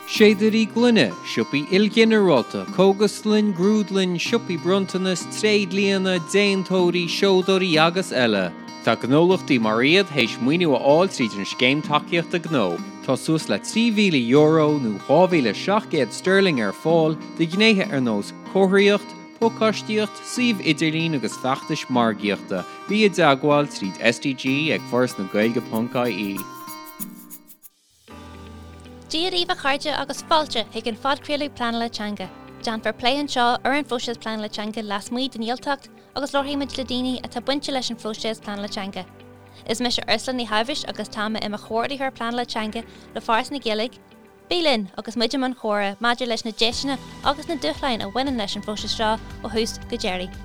Séadairí gloine, siopaí ilghinearálta, cógaslann, grúdlann, siopaí bronntanas, tréidlianna, déantóirí, seodóirí agus eile. Tá gnólachtaí mar iad théis maoiniú a fháil tríd an Scéim Tacaíochta Gnó. Tá suas le €3,000 nó 2,700 sterling ar fáil do ghnéithe ar nós comharthaíocht, pacáistíocht, suíomh idirlín agus feachtais margaíochta. Bí i dteagmháil tríd SDG ag forasnagaeilge.ie. Dia daoibh a chairde agus fáilte chuig an phodchraoladh Pleanála Teanga. Déanfar plé anseo ar an phróiseas pleanála teanga lasmuigh den Ghaeltacht agus labharfaidh muid le daoine atá bainte leis an phróiseas pleanála teanga. Is mise Ursula Ní Shábhais agus tá mé i mo chomhordaitheoir pleanála teanga le Foras na Gaeilge. Bí linn agus muid i mbun comhrá maidir leis na deiseanna agus na dúshláin a bhaineann leis an phróiseas seo ó thús go deireadh.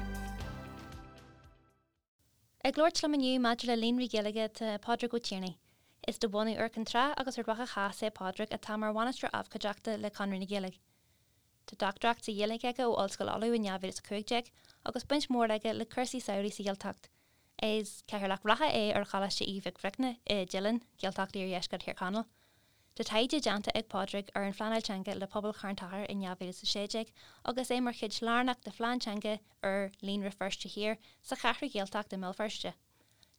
Ag labhairt liom inniu maidir le Líonraí Gaeilge tá Pádraig Ó Tiarnaigh. Is de bhunadh Iúr Cinn Trá agus Ard Mhacha Theas é Pádraig atá mar bhainisteoir abhcóideachta le Conradh na Gaeilge. Tá dochtúireacht sa Ghaeilge aige ó Ollscoil Uladh in 2015 agus baint mhór aige le cúrsaí samhraidh sa Ghaeltacht. Is cathaoirleach reatha é ar Choláiste Aoidh Mhic Bhricne i dTeileann, Gaeltacht Iardheisceart Thír Chonaill. Tá taighde déanta ag Pádraig ar an phleanáil teanga le pobal Charn Tóchair in 2016 agus é mar chuid lárnach de phlean teanga úr Líonra Feirste Thiar sa Cheathrú Ghaeltacht i mBéal Feirste.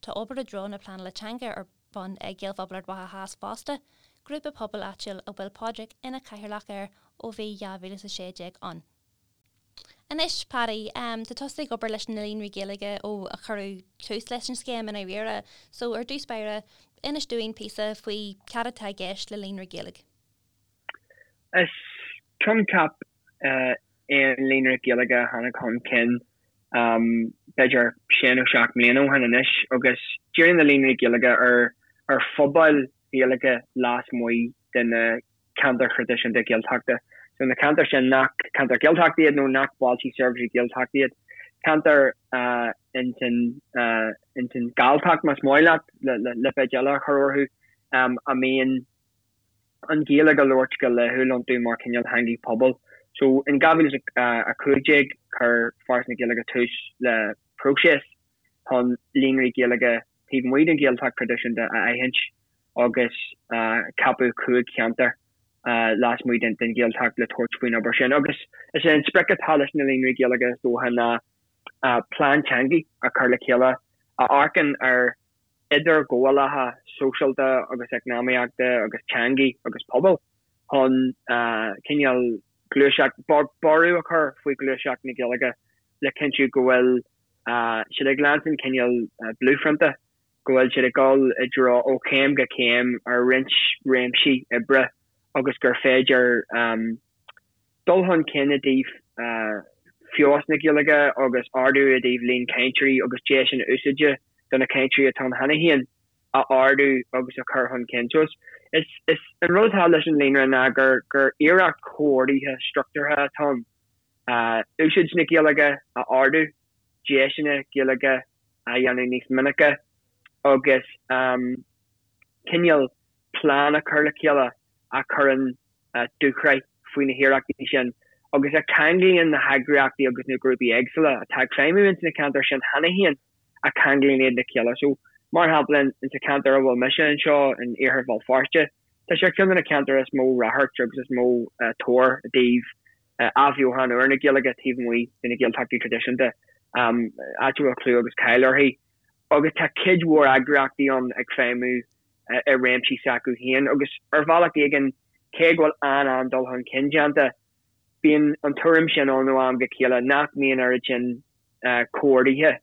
Tá obair i dtreo na pleanála teanga ar bun ag Gaelphobal Ard Mhacha Theas fosta, grúpa pobail áitiúil a bhfuil Pádraig ina chathaoirleach air ó bhí 2016 ann. Anois, Paddy, tá tusa ag obair leis na Líonraí Gaeilge ó a cuireadh tús leis an scéim i ndáiríre. So, ar dtús báire, inis dúinn píosa faoi cad atá i gceist le Líonra Gaeilge. Is coincheap é an Líonra Gaeilge a tháinig chun cinn b'fhéidir sé nó seacht mbliana ó shin anois agus díríonn na Líonraí Gaeilge ar phobail Ghaeilge lasmuigh de na ceantair thraidisiúnta Gaeltachta. So na ceantair sin nach ceantair Ghaeltachta iad nó nach bailte seirbhísí Gaeltachta iad. Ceantair ins an ins an Ghalltacht más maith leat le lipéad eile a chur orthu a mbíonn an Ghaeilge á labhairt go laethúil iontu mar cineál theangaidh pobail. So in 2015 chuir Foras na Gaeilge tús le próiseas chun líonraí Gaeilge taobh amuigh den Ghaeltacht thraidisiúnta a aithint agus ceapadh 5 cheantar lasmuigh den Ghaeltacht le tabhairt faoin obair sin. Agus is é an sprioc atá leis na líonraí Gaeilge is dócha ná plean teangaidh a chur le chéile a amharcann ar idirghabhálacha sóisialta agus eacnamaíochta agus teangaidh agus pobail chun cineál gluaiseacht, borradh a chur faoi ghluaiseacht na Gaeilge le cinntiú go bhfuil siad ag leanstan cineál bluephrionta, go bhfuil siad ag dul i dtreo ó chéim go céim ar roinnt réimsí oibre agus gur féidir dul chun cinn i dtaobh feabhas na Gaeilge agus ardú i dtaobh líon cainteoirí agus deiseanna úsáide do na cainteoirí atá ann cheana féin a ardú agus a chur chun cinn. So is is an rud atá leis an líonra ná gur gur iarracht chomhordaithe struchtúrtha atá ann. Úsáid na Gaeilge a ardú, deiseanna Gaeilge a dhéanamh níos minice agus cineál plean a chur le chéile a chuireann dúshraith faoi na hiarrachtaí sin agus a cheanglaíonn na heagraíochtaí agus na grúpaí éagsúla atá ag feidhmiú ins na ceantair sin cheana féin a cheanglaíonn iad le chéile. So, mar shampla, in sa cheantar a bhfuil mise anseo in Iarthar Bhéal Feirste, tá sé ar cheann de na ceantair is mó ráchairt agus is mó tóir i dtaobh athbheochan úr na Gaeilge taobh amuigh de na Gaeltachtaí traidisiúnta, áit a bhfuil clú agus cáil uirthi. Agus tá cuid mhór eagraíochtaí ann ag feidhmiú i réimsí s'acu féin agus ar bhealach éigin, cé go bhfuil an-an-dul chun cinn déanta, bíonn an tuairim sin ann ó am go chéile nach mbíonn oiread sin comhordaithe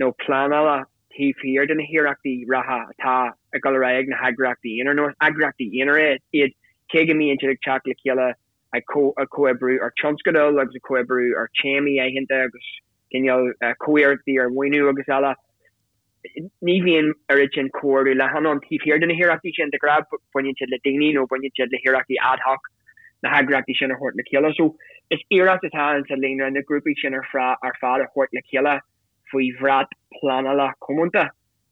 nó pleanála taobh thiar de na hiarrachtaí reatha atá ag dul ar aghaidh ag na heagraíochtaí aonair, nó is eagraíochtaí aonair iad, cé go mbíonn siad ag teacht le chéile ag comhoibriú ar tionscadail agus ag comhoibriú ar téamaí aitheanta agus cineál comhiarrachtaí ar mhaoiniú agus eile. Ní bhíonn oiread sin comhordú leathan ann taobh thiar de na hiarrachtaí sin. De ghnáth baineann siad le daoine nó baineann siad le hiarrachtaí ad hoc na heagraíochtaí sin a thabhairt le chéile. So is iarracht atá in sa líonra na grúpaí sin ar fad a thabhairt le chéile faoi bhrat pleanála comónta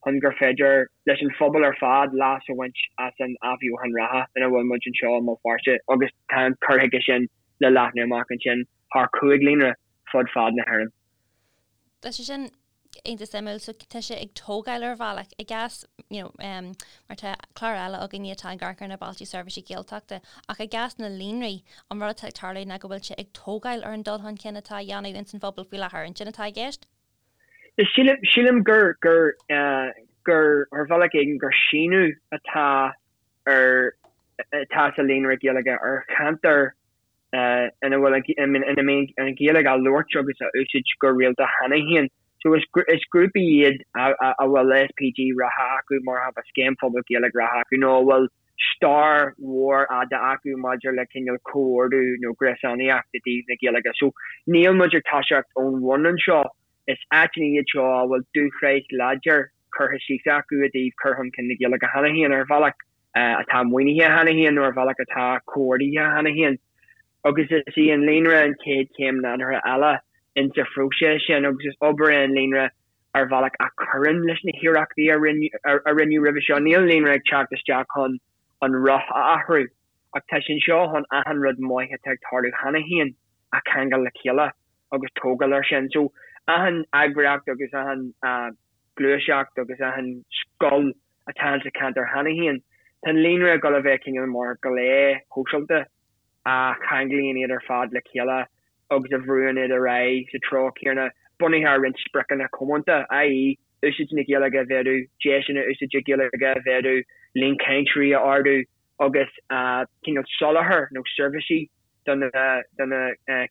chun gur féidir leis an phobal ar fad leas a bhaint as an athbheochan reatha ina bhfuil muid anseo i mBéal Feirste agus tá an cur chuige sin le leathnú amach ansin thar chúig líonra fud fad na hÉireann. Tá sé sin. iontach suimiúil, so tá sé ag tógáil ar bhealach, i gcás, you know, em, mar tá clár eile againne atá ag amharc ar na Bailte Seirbhíse Gaeltachta, ach i gcás na líonraí, an rud atá ag tarlú ná go bhfuil sé ag tógáil ar an dul chun cinn atá á dhéanamh ins an phobal faoi láthair, an sin atá i gceist? Sílim, sílim gur, gur, eh, gur, ar bhealach éigin, gur síneadh atá ar, atá sa Líonra Gaeilge ar cheantar ina bhfuil ina mbíonn an Ghaeilge á labhairt agus á úsáid go rialta cheana féin. So is is grúpaí iad a bhfuil SPG reatha acu, mar shampla Scéim Phobail Gaeilge reatha acu, nó a bhfuil stair mhór fhada acu maidir le cineál comhordú nó gréasánaíocht i dtaobh na Gaeilge. So níl muid ag toiseacht ón bhun anseo, is áiteanna iad seo a bhfuil dúshraith láidir curtha síos acu i dtaobh cur chun cinn na Gaeilge cheana féin ar bhealach. atá maoinithe cheana féin nó ar bhealach atá comhordaithe cheana féin. Agus is í an líonra an chéad chéim nádúrtha eile insa phróiseas sin agus is obair é an líonra ar bhealach a chuireann leis na hiarrachtaí a rinneadh roimhe seo. Níl an líonra ag teacht isteach chun an roth a athrú ach tá sé anseo chun achan rud maith atá ag tarlú cheana féin a cheangal le chéile agus tógáil air sin. So achan eagraíocht agus achan gluaiseacht agus achan scoil atá insa cheantar cheana féin. Tá an líonra ag dul a bheith cineál mar ghlao shóisialta a cheanglaíonn iad ar fad le chéile agus a bhrúann iad ar aghaidh sa treo céanna, bunaithe ar roinnt spriocanna comónta, i.e. úsáid na Gaeilge a mhéadú, deiseanna úsáide Gaeilge a mhéadú, líon cainteoirí a ardú agus cineál soláthar nó seirbhísí do na do na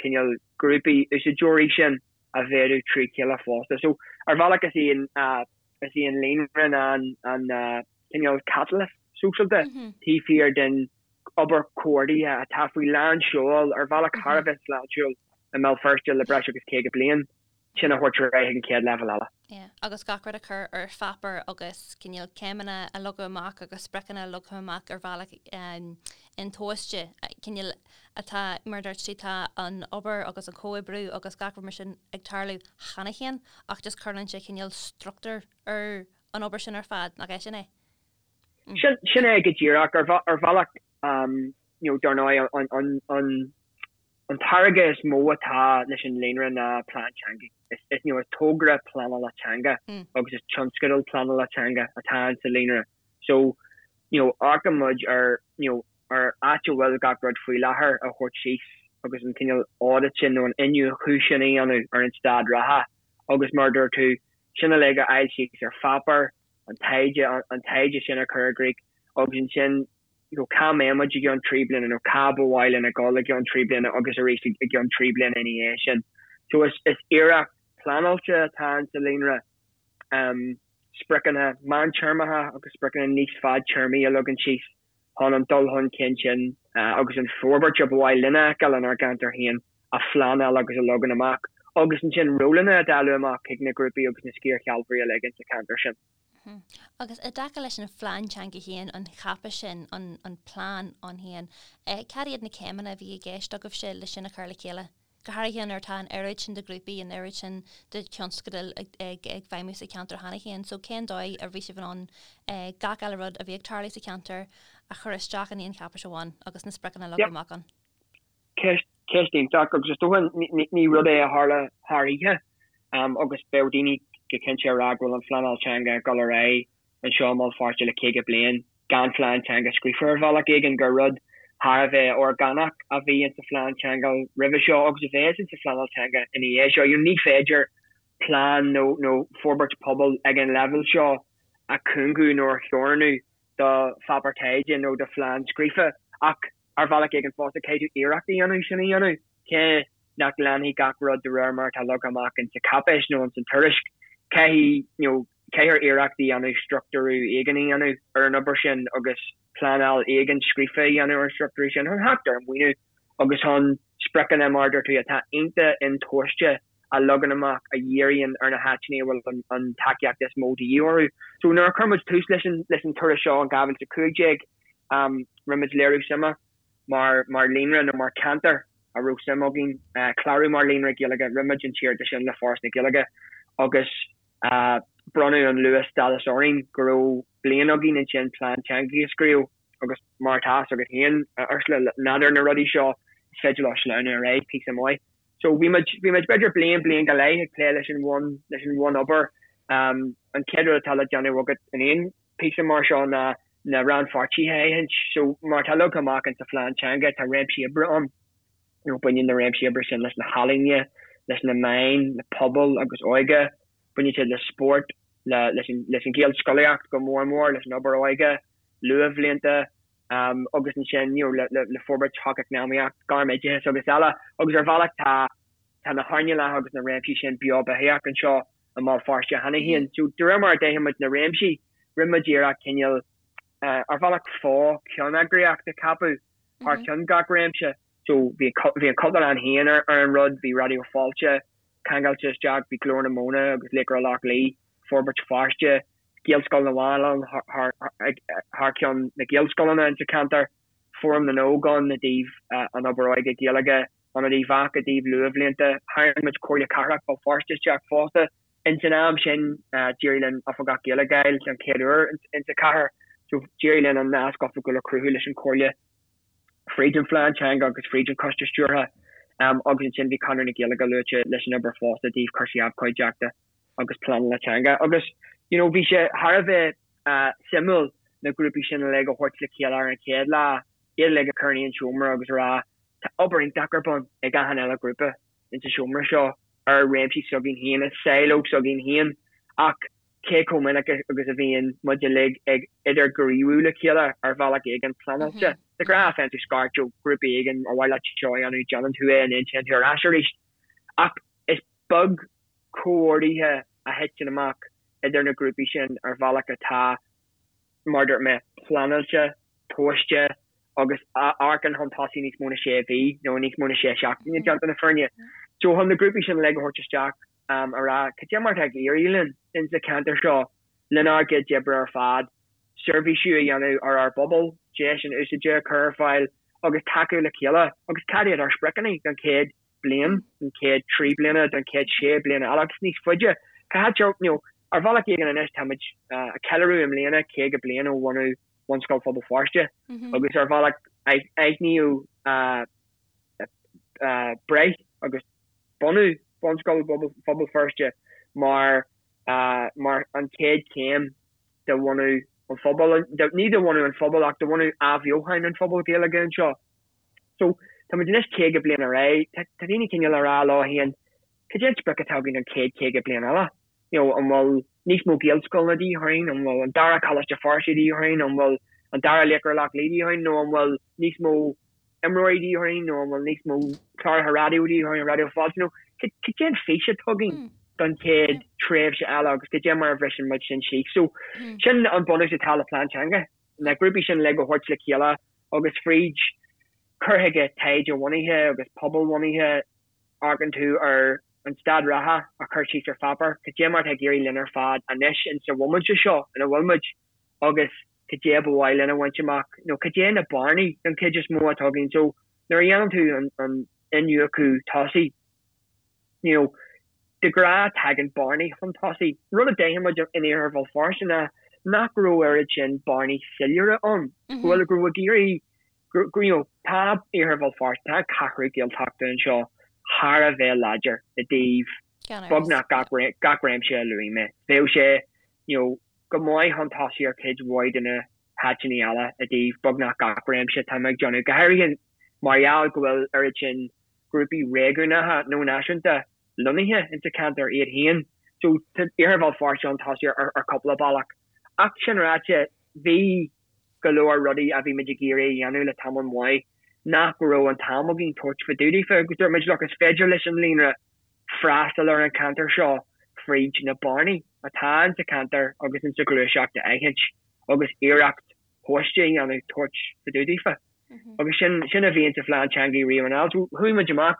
cineál grúpaí úsáideoirí sin a mhéadú trí chéile fosta. So ar bhealach is í an is í an líonra ná an cineál catalyst sóisialta taobh thiar den obair chomhordaithe atá faoi lán seoil ar bhealach thar a bheith sláintiúil i mBéal Feirste le breis agus 50 bliain, sin a thabhairt ar aghaidh chuig an chéad leibhéal eile. Yeah, agus gach rud a chur ar pháipéar agus cineál céimeanna a leagadh amach agus spriocanna a leagadh amach ar bhealach intomhaiste, cineál atá, mar a dúirt tú, tá an obair agus an comhoibriú agus gach rud mar sin ag tarlú cheana féin ach just cuireann sé cineál struchtúr ar an obair sin ar fad, nach é sin é? Sin, sin é go díreach. Ar, ar bhealach, you know, dar ndóigh, an, an, an, an táirge is mó atá leis an líonra ná plean teanga. Is, is, you know, is togra pleanála teanga agus is tionscadal pleanála teanga atá insa líonra. So, you know, amharcann muid ar, you know, ar áit a bhfuil gach rud faoi láthair a thabhairt síos agus an cineál audit sin nó an iniúchadh sin a dhéanamh ar an staid reatha agus mar a dúirt tú, sin uilig a fháil síos ar pháipéar, an taighde, an taighde sin a chur i gcrích agus ansin you know cá mbeidh muid i gceann 3 bliana nó cá ba mhaith linn a dhul i gceann 3 bliana agus arís i gceann 3 bliana ina dhiaidh sin. So is, is iarracht pleanáilte atá insa líonra. Um, spriocanna meántéarmacha agus spriocanna níos fadtéarmaí a leagan síos chun an dul chun cinn sin agus an forbairt a ba mhaith linn a fheiceáil inár gceantar féin a phleanáil agus a leagan amach, agus ansin rólanna a dháileadh amach chuig na grúpaí agus na sciarshealbhóirí uilig insa cheantar sin. Agus i dtaca leis an phlean teanga féin, an cháipéis sin, an plean ann féin, cad iad na céimeanna a bhí i gceist agaibhse le sin a chur le chéile? go háirithe nuair atá an oiread sin de ghrúpaí, an oiread sin de thionscadail ag feidhmiú sa cheantar cheana féin. So cén dóigh a bhí sibh in ann gach uile rud a bhí ag tarlú sa cheantar a chur isteach in aon cháipéis amháin agus na spriocanna a leagadh amach ann? Ceist, ceist iontach agus is dócha ní rud é a tharla thar oíche agus bheadh daoine go cinnte ag rá go bhfuil an phleanáil teanga ag dul ar aghaidh anseo i mBéal Feirste le 50 bliain gan phlean teanga scríofa ar bhealach éigin, gur rud thar a bheith orgánach a bhí insa phlean teanga roimhe seo agus a bheas insa phleanáil teanga ina dhiaidh seo. You know, ní féidir plean nó nó forbairt pobail ag an leibhéal seo a chúngú nó a theorannú do pháipéar taighde nó do phlean scríofa ach ar bhealach éigin fosta caithfidh tú iarracht a dhéanamh sin a dhéanamh. Cé nach leanfaidh gach rud de réir mar atá leagtha amach insa cháipéis nó insan tuairisc, caithfidh, you know, caithfear iarracht a dhéanamh struchtúrú éigin a dhéanamh ar an obair sin agus pleanáil éigin scríofa a dhéanamh ar an struchtúrú sin chun theacht ar mhaoiniú agus chun spriocanna, mar a dúirt tú, atá iontach intomhaiste a leagan amach a dhíríonn ar na háiteanna a bhfuil an tacaíocht is mó de dhíth orthu. So nuair a chuir muid tús leis an leis an turas seo in 2015, rinne muid léiriú suime mar mar líonra nó mar cheantar a raibh suim againn clárú mar líonra Gaeilge. Rinne muid an t-iarratas sin le Foras na Gaeilge agus bronnadh an luath-stádas orainn go raibh bliain againn ansin plean teanga a scríobh agus mar atá a fhios agat féin, a Ursula, nádúr na rudaí seo, is féidir leo sleamhnú ar aghaidh píosa maith. So bhí muid, bhí muid b'fhéidir bliain, bliain go leith ag plé leis an bhun, leis an bhunobair. An chéad rud atá le déanamh agat in aon phíosa mar seo ná na rannpháirtithe a aithint. So mar atá leagtha amach insa phlean teanga tá réimsí oibre ann. You know, baineann na réimsí oibre sin leis na healaíona, leis na meáin, le pobal agus óige, baineann siad le spórt, le, leis an, leis an Ghaelscolaíocht go mór mór, leis an obair óige, luathbhlianta, agus ansin, you know, le, le, le forbairt shocheacnamaíoch, gairmoideachas agus eile. Agus ar bhealach tá, tá na hearnálacha agus na réimsí sin beo beathaíoch anseo i mBéal Feirste cheana féin. So de réir mar a d'aithin muid na réimsí, rinne muid iarracht cineál, ar bhealach fo-cheanneagraíocht a cheapadh thar ceann gach réimse. So bhí, bhí an Chultúrlann féin ar an rud, bhí Raidió Fáilte ceangailte isteach, bhí Glór na Móna agus Laochra Loch Lao, Forbairt Feirste, Gaelscoil na bhFathach thar ceann na Gaelscoileanna insa cheantar, Fóram na nÓg ann i dtaobh an obair óige Gaeilge, Ionad Uíbh Eachach i dtaobh luathbhlianta. Tharraing muid Comhairle Cathrach Bhéal Feirste isteach fosta. Ins an am sin d'éirigh linn Oifigeach Gaeilge a fháil den chéad uair insa chathair so d'éirigh linn an nasc oifigiúil a chruthú leis an Chomhairle fríd an phlean teanga agus fríd an choiste stiúrtha agus ansin bhí Conradh na Gaeilge luaite leis an obair fosta i dtaobh cúrsaí abhcóideachta agus pleanála teanga agus you know bhí sé thar a bheith suimiúil na grúpaí sin uilig a thabhairt le chéile ar an chéad lá, iad uilig a chur in aon seomra agus a rá tá obair iontach ar bun ag achan uile ghrúpa insa seomra seo ar réimsí s'againn féin, i silo s'againn féin ach cé chomh minic agus a bhíonn muid uilig ag idirghníomhú le chéile ar bhealach éigin pleanáilte. De ghnáth faigheann tú scairt ó ghrúpa éigin ar mhaith leat seo a dhéanamh, déanann tú é and then téann tú ar ais arís. Ach is beag comhordaithe a thiteann amach idir na grúpaí sin ar bhealach atá, mar a dúirt mé, pleanáilte, tomhaiste agus a amharcann chun tosaigh níos mó na sé mhí nó níos mó na sé seachtaine, déanta na fírinne. So chun na grúpaí sin uilig a thabhairt isteach a rá cad é mar atá ag éirí linn insa cheantar seo lenár gcuid oibre ar fad, seirbhísiú a dhéanamh ar ár bpobal, deis inúsáidte a chur ar fáil agus tacú le chéile agus cad iad ár spriocanna don chéad bliain, don chéad 3 bliana, don chéad 6 bliana eile agus níos faide. Cá háit you know, ar bhealach éigin anois táimid ag ceiliúradh i mbliana 50 bliain ó bhunú Bhunscoil Phobal Feirste agus ar bhealach aithníodh breith agus bunú Bhunscoil Phobal Feirste mar mar an chéad chéim de bhunú an phobail, ní de bhunú an phobail ach de bhunú athbheochan an phobail Ghaeilge anseo. So, tá muid anois 50 bliain ar aghaidh, tá daoine cineál ag rá leo féin, cad é an sprioc atá againn don chéad 50 bliain eile? You know, an bhfuil níos mó Gaelscoileanna de dhíth orainn, an bhfuil an dara Coláiste Feirste de dhíth orainn, an bhfuil an dara Laochra Loch Lao de dhíth orainn, nó an bhfuil níos mó imreoirí de dhíth orainn, nó an bhfuil níos mó cláracha raidió de dhíth orainn, Raidió Fáilte, nó cad é an fís atá againn don chéad tréimhse eile agus cad é mar a bhriseann muid sin síos. So, sin an bunús atá le plean teanga, na grúpaí sin uilig a thabhairt le chéile agus fríd cur chuige taighde-bhunaithe agus pobal-bhunaithe, amharcann tú ar an staid reatha a chur síos ar pháipéar, cad é mar atá ag éirí linn ar fad anois insa bhomaite seo ina bhfuil muid agus cad é ba mhaith linn a bhaint amach nó cad é na bearnaí den chuid is mó atá againn. So nuair a dhéanann tú an iniúchadh tosaigh, you know, de ghnáth tagann bearnaí chun tosaigh. Rud a d'aithin muid in Iarthar Bhéal Feirste ná nach raibh oiread sin bearnaí soiléire ann, go bhfuil, go raibh ag éirí, go, you know, tá Iarthar Bhéal Feirste, tá an ceathrú Gaeltachta anseo thar a bheith láidir i dtaobh beagnach gach, gach réimse a luaigh mé. Bheadh sé, you know, go maith chun tosaigh ar chuid mhaith de na háiteanna eile i dtaobh beagnach gach réimse atá mé ag déanamh, go háirithe mar gheall go bhfuil oiread sin grúpaí réigiúnacha nó náisiúnta lonnaithe insa cheantar iad féin. So tá Iarthar Bhéal Feirste chun tosaigh ar chúpla bealach. Ach sin ráite, bhí go leor rudaí a bhí muid ag iarraidh a dhéanamh le tamall maith nach raibh an t-am againn tabhairt fá dtaobh daofa agus dúirt muid look is féidir leis an líonra freastal ar an cheantar seo fríd na bearnaí atá insa cheantar agus insa ghluaiseacht a aithint agus iarracht thomhaiste a dhéanamh tabhairt fá dtaobh daofa. Agus sin, sin a bhí insa phlean teanga riamh anall. So chuaigh muid amach,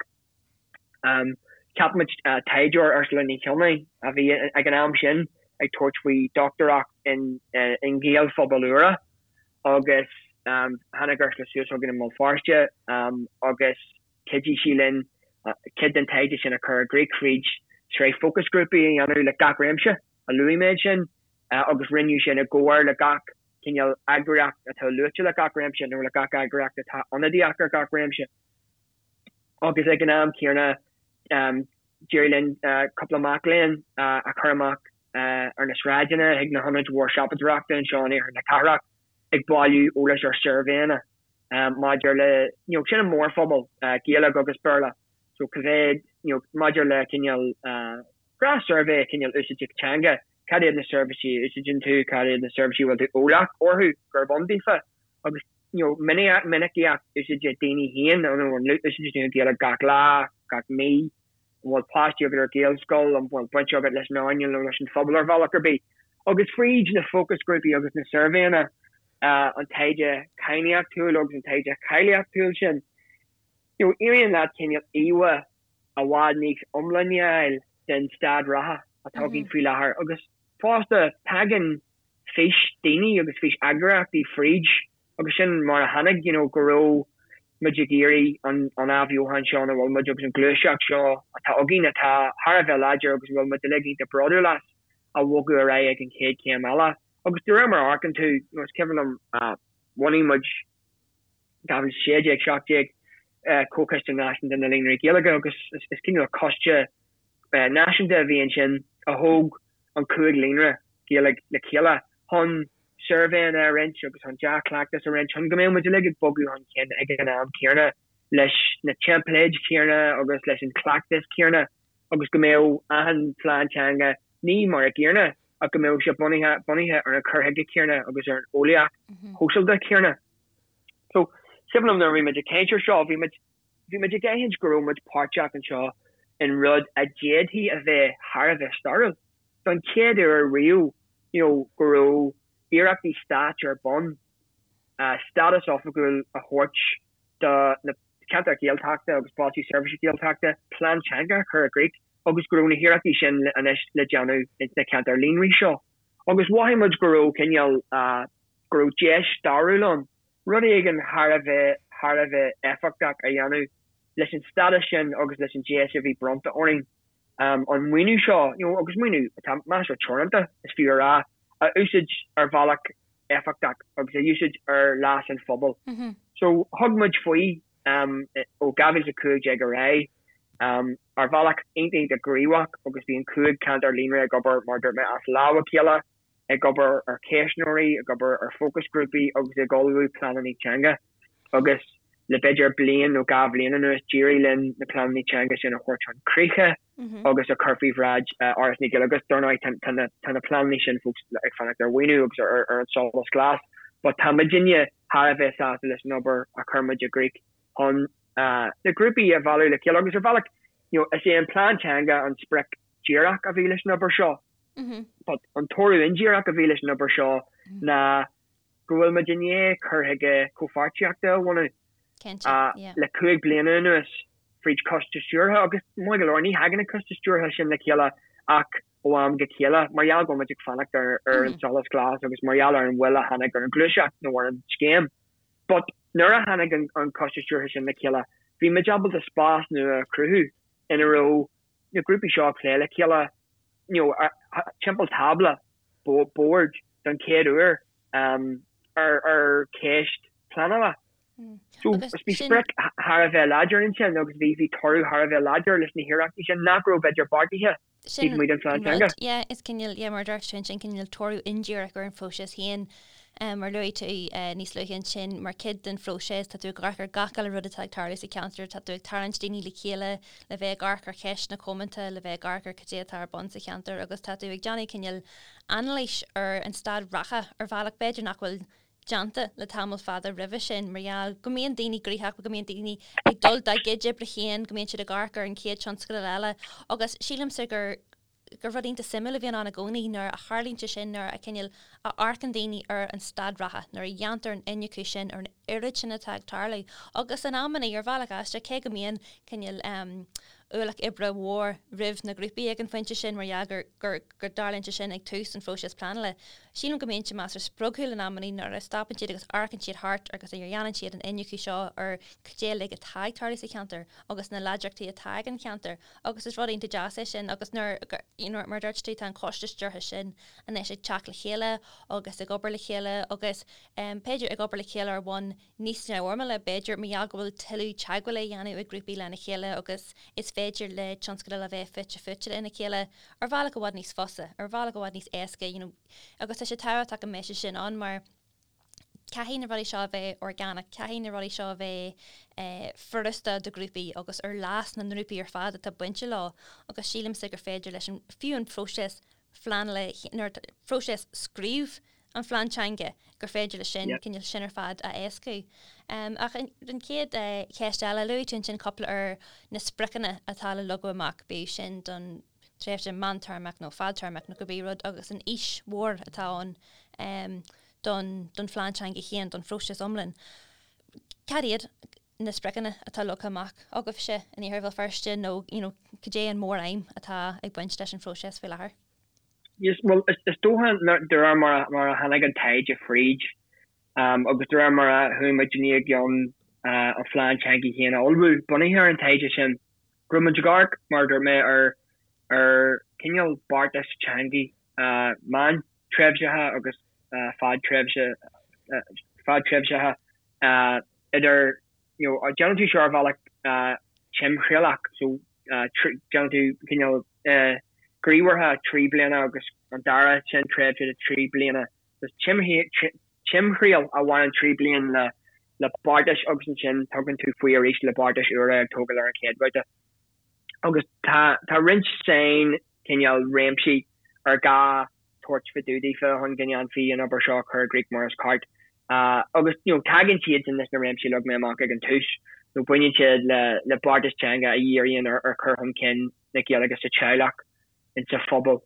cheap muid taighdeoir, Ursula Ní Chionnaith, a bhí ag an am sin ag tabhairt faoi dochtúireacht in, i nGaelphobail úra agus tháinig Ursula suas chugainn i mBéal Feirste agus chuidigh sí linn cuid den taighde sin a chur i gcrích fríd sraith fócasghrúpaí a dhéanamh le gach réimse a luaigh mé ansin agus rinneadh sin i gcomhar le gach cineál eagraíocht atá luaite le gach réimse nó le gach eagraíocht atá ionadaíoch ar gach réimse. Agus ag an am céanna, d'éirigh linn cúpla mac léinn a chur amach. ar na sráideanna, chuig na hionaid mhór siopadóireachta anseo in iarthar na cathrach ag bailiú eolais ar suirbhéanna maidir le, you know, sin an mórphobal, Gaeilge agus Béarla, so cá mhéad, you know, maidir le cineál gnáth-suirbhé cineál úsáide teanga, cad iad na seirbhísí a úsáideann tú, cad iad na seirbhísí a bhfuil tú eolach orthu gurb ann daofa agus, you know, minicíocht úsáide daoine féin, you know, an úsáideann tú an Ghaeilge gach lá, gach mí, an bhfuil páistí agat ar Ghaelscoil, an bhfuil baint agat leis an earnáil nó leis an phobal ar bhealach ar bith. Agus fríd na fócasghrúpaí agus na suirbhéanna, an taighde cainníochtúil agus an taighde cáilíochtúil sin, you know, éiríonn leat cineál íomhá i bhfad níos iomláine a fháil den staid reatha atá againn faoi láthair. Agus fosta, tagann fís daoine agus fís eagraíochtaí fríd agus sin mar a tháinig, you know, go raibh muid ag iarraidh an an athbheochan seo ina bhfuil muid agus an ghluaiseacht seo atá againn atá thar a bheith láidir agus a bhfuil muid uilig iontach bródúil as a bhogadh ar aghaidh ag an chéad chéim eile. Agus de réir mar a amharcann tú, you know, is cuimhin liom, bhunaigh muid 2016, 17, Comhchoiste Náisiúnta na Líonraí Gaeilge agus is cineál coiste náisiúnta a bhí ansin a thóg an 5 líonra Gaeilge le chéile chun suirbhéanna a roinnt agus chun dea-chleachtas a roinnt chun go mbeadh muid uilig ag bogadh chun cinn ag an am céanna leis na teimpléid chéanna agus leis an chleachtas céanna agus go mbeadh achan phlean teanga ní mar a gcéanna ach go mbeadh sé bunaithe bunaithe ar an chur chuige céanna agus ar an eolaíocht shóisialta chéanna. So, is cuimhin liom nuair a bhí muid ag caint ar seo, bhí muid bhí muid ag aithint go raibh muid páirteach anseo in rud a d'fhéadfaí a bheith thar a bheith stairiúil. Don chéad uair riamh, you know, go raibh iarrachtaí stáit ar bun stádas oifigiúil a thabhairt do na ceantair Ghaeltachta agus Bailte Seirbhíse Gaeltachta, plean teanga a chur i gcrích agus go raibh na hiarrachtaí sin anois le déanamh ins na ceantair líonraí seo. Agus mhothaigh muid go raibh cineál, go raibh deis stairiúil ann rud éigin thar a bheith thar a bheith éifeachtach a dhéanamh leis an stádas sin agus leis an deis a bhí bronnta orainn an maoiniú seo, you know, agus maoiniú atá measartha teoranta, is fiú a rá, a úsáid ar bhealach éifeachtach agus a úsáid ar leas an phobail. So thug muid faoi ó 2015 ar aghaidh ar bhealach iontach iontach gníomhach agus bhí an 5 ceantar líonra ag obair, mar a dúirt mé, as lámh a chéile, ag obair ar cheistneoirí, ag obair ar fócasghrúpaí agus ag ullmhú pleananna teanga agus le b'fhéidir bliain nó 2 bhliain anuas d'éirigh linn na pleananna teanga sin a thabhairt chun críche agus a chur faoi bhráid Fhoras na Gaeilge agus dar ndóigh tá na pleananna sin fós ag fanacht ar mhaoiniú agus ar an solas glas but tá muidinne thar a bheith sásta leis an obair a chuir muid i gcrích chun na grúpaí a mhealladh le chéile agus ar bhealach you know is é an plean teanga an sprioc díreach a bhí leis an obair seo. But an toradh indíreach a bhí leis an obair seo ná go bhfuil muid i ndiaidh cur chuige comhpháirtíochta a bhunú le 5 bliana anuas fríd choiste stiúrtha agus maith go leor ní thagann an coiste stiúrtha sin le chéile ach ó am go chéile mar gheall go bhfuil muid ag fanacht ar ar an solas glas agus mar gheall ar an mhoill a tháinig ar an ghluaiseacht nó ar an scéim. But nuair a tháinig an coiste stiúrtha sin le chéile bhí muid ábalta spás nua a chruthú ina raibh na grúpaí seo ag plé le chéile you know timpeall tábla boird don chéad uair ar ar cheist pleanála. So bhí sprioc thar a bheith láidir ansin agus bhí bhí toradh thar a bheith láidir leis na hiarrachtaí sin nach raibh b'fhéidir beartaithe taobh amuigh den phlean teanga. Yeah, is cineál, yeah, mar a dúirt tú ansin, cineál toradh indíreach ar an phróiseas féin. Mar luaigh tú níos luaithe ansin, mar chuid den phróiseas, tá tú ag amharc ar gach uile rud atá ag tarlú sa cheantar, tá tú ag tarraingt daoine le chéile le bheith ag amharc ar cheisteanna comónta, le bheith ag amharc ar cad é atá ar bun sa cheantar agus tá tú ag déanamh cineál anailís ar an staid reatha ar bhealach b'fhéidir nach bhfuil déanta le tamall fada roimhe sin mar gheall go mbíonn daoine gnoitheach, go mbíonn daoine ag dul dá gcuid oibre féin, go mbíonn siad ag amharc ar an chéad tionscadal eile agus sílimse gur gur rud iontach suimiúil a bhíonn ann i gcónaí nuair a tharlaíonn sé sin, nuair a cineál a amharcann daoine ar an staid reatha, nuair a dhéantar an iniúchadh sin ar an oiread sin atá ag tarlú. Agus in amannaí, ar bhealach aisteach, cé go mbíonn cineál ualach oibre mhór roimh na grúpaí ag an phointe sin mar gheall gur gur go dtarlaíonn sé sin ag tús an phróisis pleanála, sílim go mbíonn sé measartha spreagúil in amannaí nuair a stopann siad agus amharcann siad thart agus a dhéanann siad an iniúchadh seo ar cad é uilig atá ag tarlú sa cheantar agus na láidreachtaí atá ag an cheantar. Agus is rud iontach deas é sin agus nuair, you know, mar a dúirt tú, tá an coiste stiúrtha sin anois ag teacht le chéile agus ag obair le chéile agus b'fhéidir ag obair le chéile ar bhonn níos neamhfhoirmiúla, b'fhéidir, mar gheall go bhfuil tuilleadh teagmhála á dhéanamh ag grúpaí lena chéile agus is féidir. féidir le tionscadail a bheith fite fuaite lena chéile ar bhealach i bhfad níos fusa, ar bhealach i bhfad níos éasca, you know, agus tá sé tábhachtach go mbeidh sé sin ann mar caithfidh na rudaí seo a bheith orgánach, caithfidh na rudaí seo a bheith eh, furasta do ghrúpaí agus ar leas na ngrúpaí ar fad atá bainte leo agus sílimse gur féidir leis an, fiú an próiseas phleanála, nuair próiseas scríobh an phlean teanga, gur féidir leis sin, cineál sin ar fad a éascú. Ach an chéad cheist eile, luaigh tú ansin cúpla ar na spriocanna atá le leagadh amach, bíodh sin don tréimhse meántéarmach nó fadtéarmach nó cibé rud, agus an fhís mhór atá ann don don phlean teanga féin, don phróiseas iomlán. Cad iad na spriocanna atá leagtha amach agaibhse in Iarthar Bhéal Feirste nó you know, cad é an mór-aidhm atá ag baint leis an phróiseas faoi láthair? Yes, well, is, is dócha de réir mar, mar a tháinig an taighde fríd um, agus de réir mar a chuaigh muidinne i gcionn uh, an phlean teanga féin a ullmhú bunaithe ar an taighde sin, go raibh muid ag amharc, mar a dúirt mé, ar, ar cineál beartas teanga uh, meántréimhseacha agus uh, fadtréimhse, uh, fadtréimhseacha uh, idir, you know, déanann tú seo ar bhealach timthriallach, so déanann tú cineál gníomhartha 3 bliana agus an dara sin tréimhse de 3 bliana. So timthriall a bhaineann 3 bliana le le beartais agus ansin tugann tú faoi arís le beartais úra ag tógáil ar an chéad bhabhta. Agus tá tá roinnt sain cineál réimsí ar gá tabhairt fá dtaobh daofa chun go ndéanfaí an obair seo a chur i gcrích mar is ceart. Agus you know tagann siad sin leis na réimsí a leag mé amach ag an tús, nó baineann siad le le beartas teanga a dhíríonn ar ar chur chun cinn na Gaeilge sa teaghlach, insa phobal,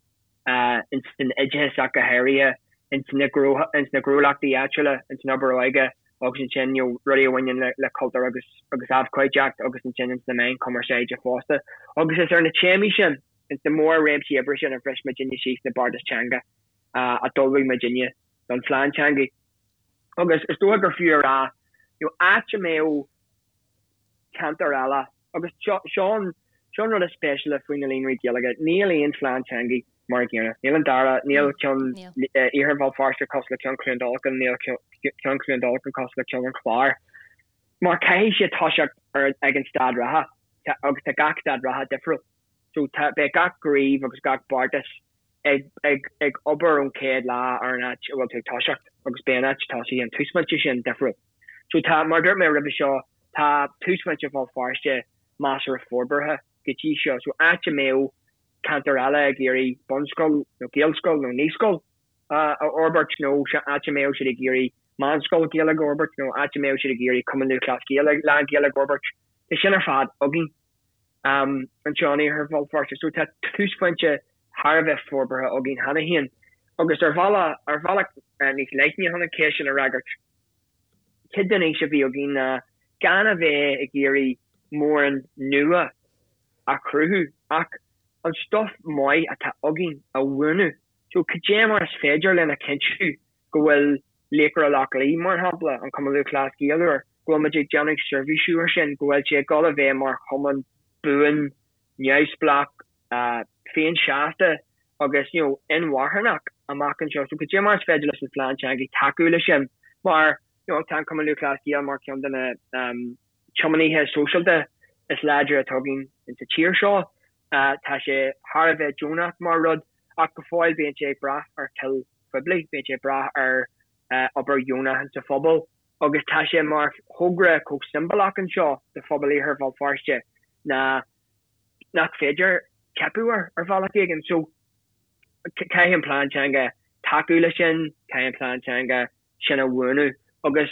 ins an oideachas ach go háirithe, ins na ins na gnólachtaí áitiúla, ins an obair óige agus ansin you know rudaí a bhaineann le le cultúr agus agus abhcóideacht agus ansin ins na meáin chumarsáide fosta. Agus is ar na téamaí sin, ins na mór-réimsí oibre sin a bhris muidinne síos na beartais teanga a d'ullmhaigh muidinne don phlean teanga. Agus is dócha gur fiú a rá, you know, áit a mbeadh ceantar eile, agus seo, seo an, seo an rud is spéisiúla faoi na líonraí Gaeilge, níl aon phlean teanga mar an gcéanna. Níl an dara, níl ceann Iarthar Bhéal Feirste cosúil le ceann Chluain Dolcáin, níl ceann Chluain Dolcáin cosúil le ceann an Chláir. Mar caithfidh siad toiseacht ar, ag an staid reatha, agus tá gach staid reatha difriúil. So tá, beidh gach gníomh agus gach beartas ag, ag, ag obair ón chéad lá ar an áit a bhfuil tú ag toiseacht agus beidh an áit tosaithe, an túsphointe sin, difriúil. So tá, mar a dúirt mé roimhe seo, tá túsphointe Bhéal Feirste measartha forbartha go dtí seo. So áit a mbeadh ceantar eile ag iarraidh bunscoil nó gaelscoil nó naíscoil a fhorbairt nó áit a mbeadh siad ag iarraidh meánscoil Gaeilge a fhorbairt nó áit a mbeadh siad ag iarraidh Cumann Lúthchleas Gael lán-Ghaeilge a fhorbairt, tá sin ar fad againn. anseo in Iarthar Bhéal Feirste. So tá túsphointe thar a bheith forbartha againn cheana féin. Agus ar bhealach, ar bhealach níos leithne chun an cheist sin a fhreagairt, cuid den fhís a bhí againn ná gan a bheith ag iarraidh mórán nua a chruthú ach an stuif maith atá againn a bhuanú. So cad é mar is féidir linn a chinntiú go bhfuil Laochra Loch Lao, mar shampla, an Cumann Lúthchleas Gael úr, go bhfuil muid ag déanamh seirbhísiú air sin, go bhfuil sé ag dul a bheith mar chumann buan, neamhspleách, féinseasta agus you know inmharthanach amach anseo. So cad é mar is féidir leis an phlean teanga tacú leis sin mar you know tá an Cumann Lúthchleas Gael mar cheann de na tiománaithe sóisialta is láidre atá againn insa tír seo. Tá sé thar a bheith deonach mar rud ach go fóill bíonn sé ag brath ar toil phoiblí, bíonn sé ag brath ar obair dheonach insa phobal agus tá sé mar thogra chomh siombalach anseo do phobal Iarthar Bhéal Feirste ná nach féidir teipeadh air ar bhealach éigin. So caithfidh an plean teanga tacú leis sin, caithfidh an plean teanga sin a bhuanú agus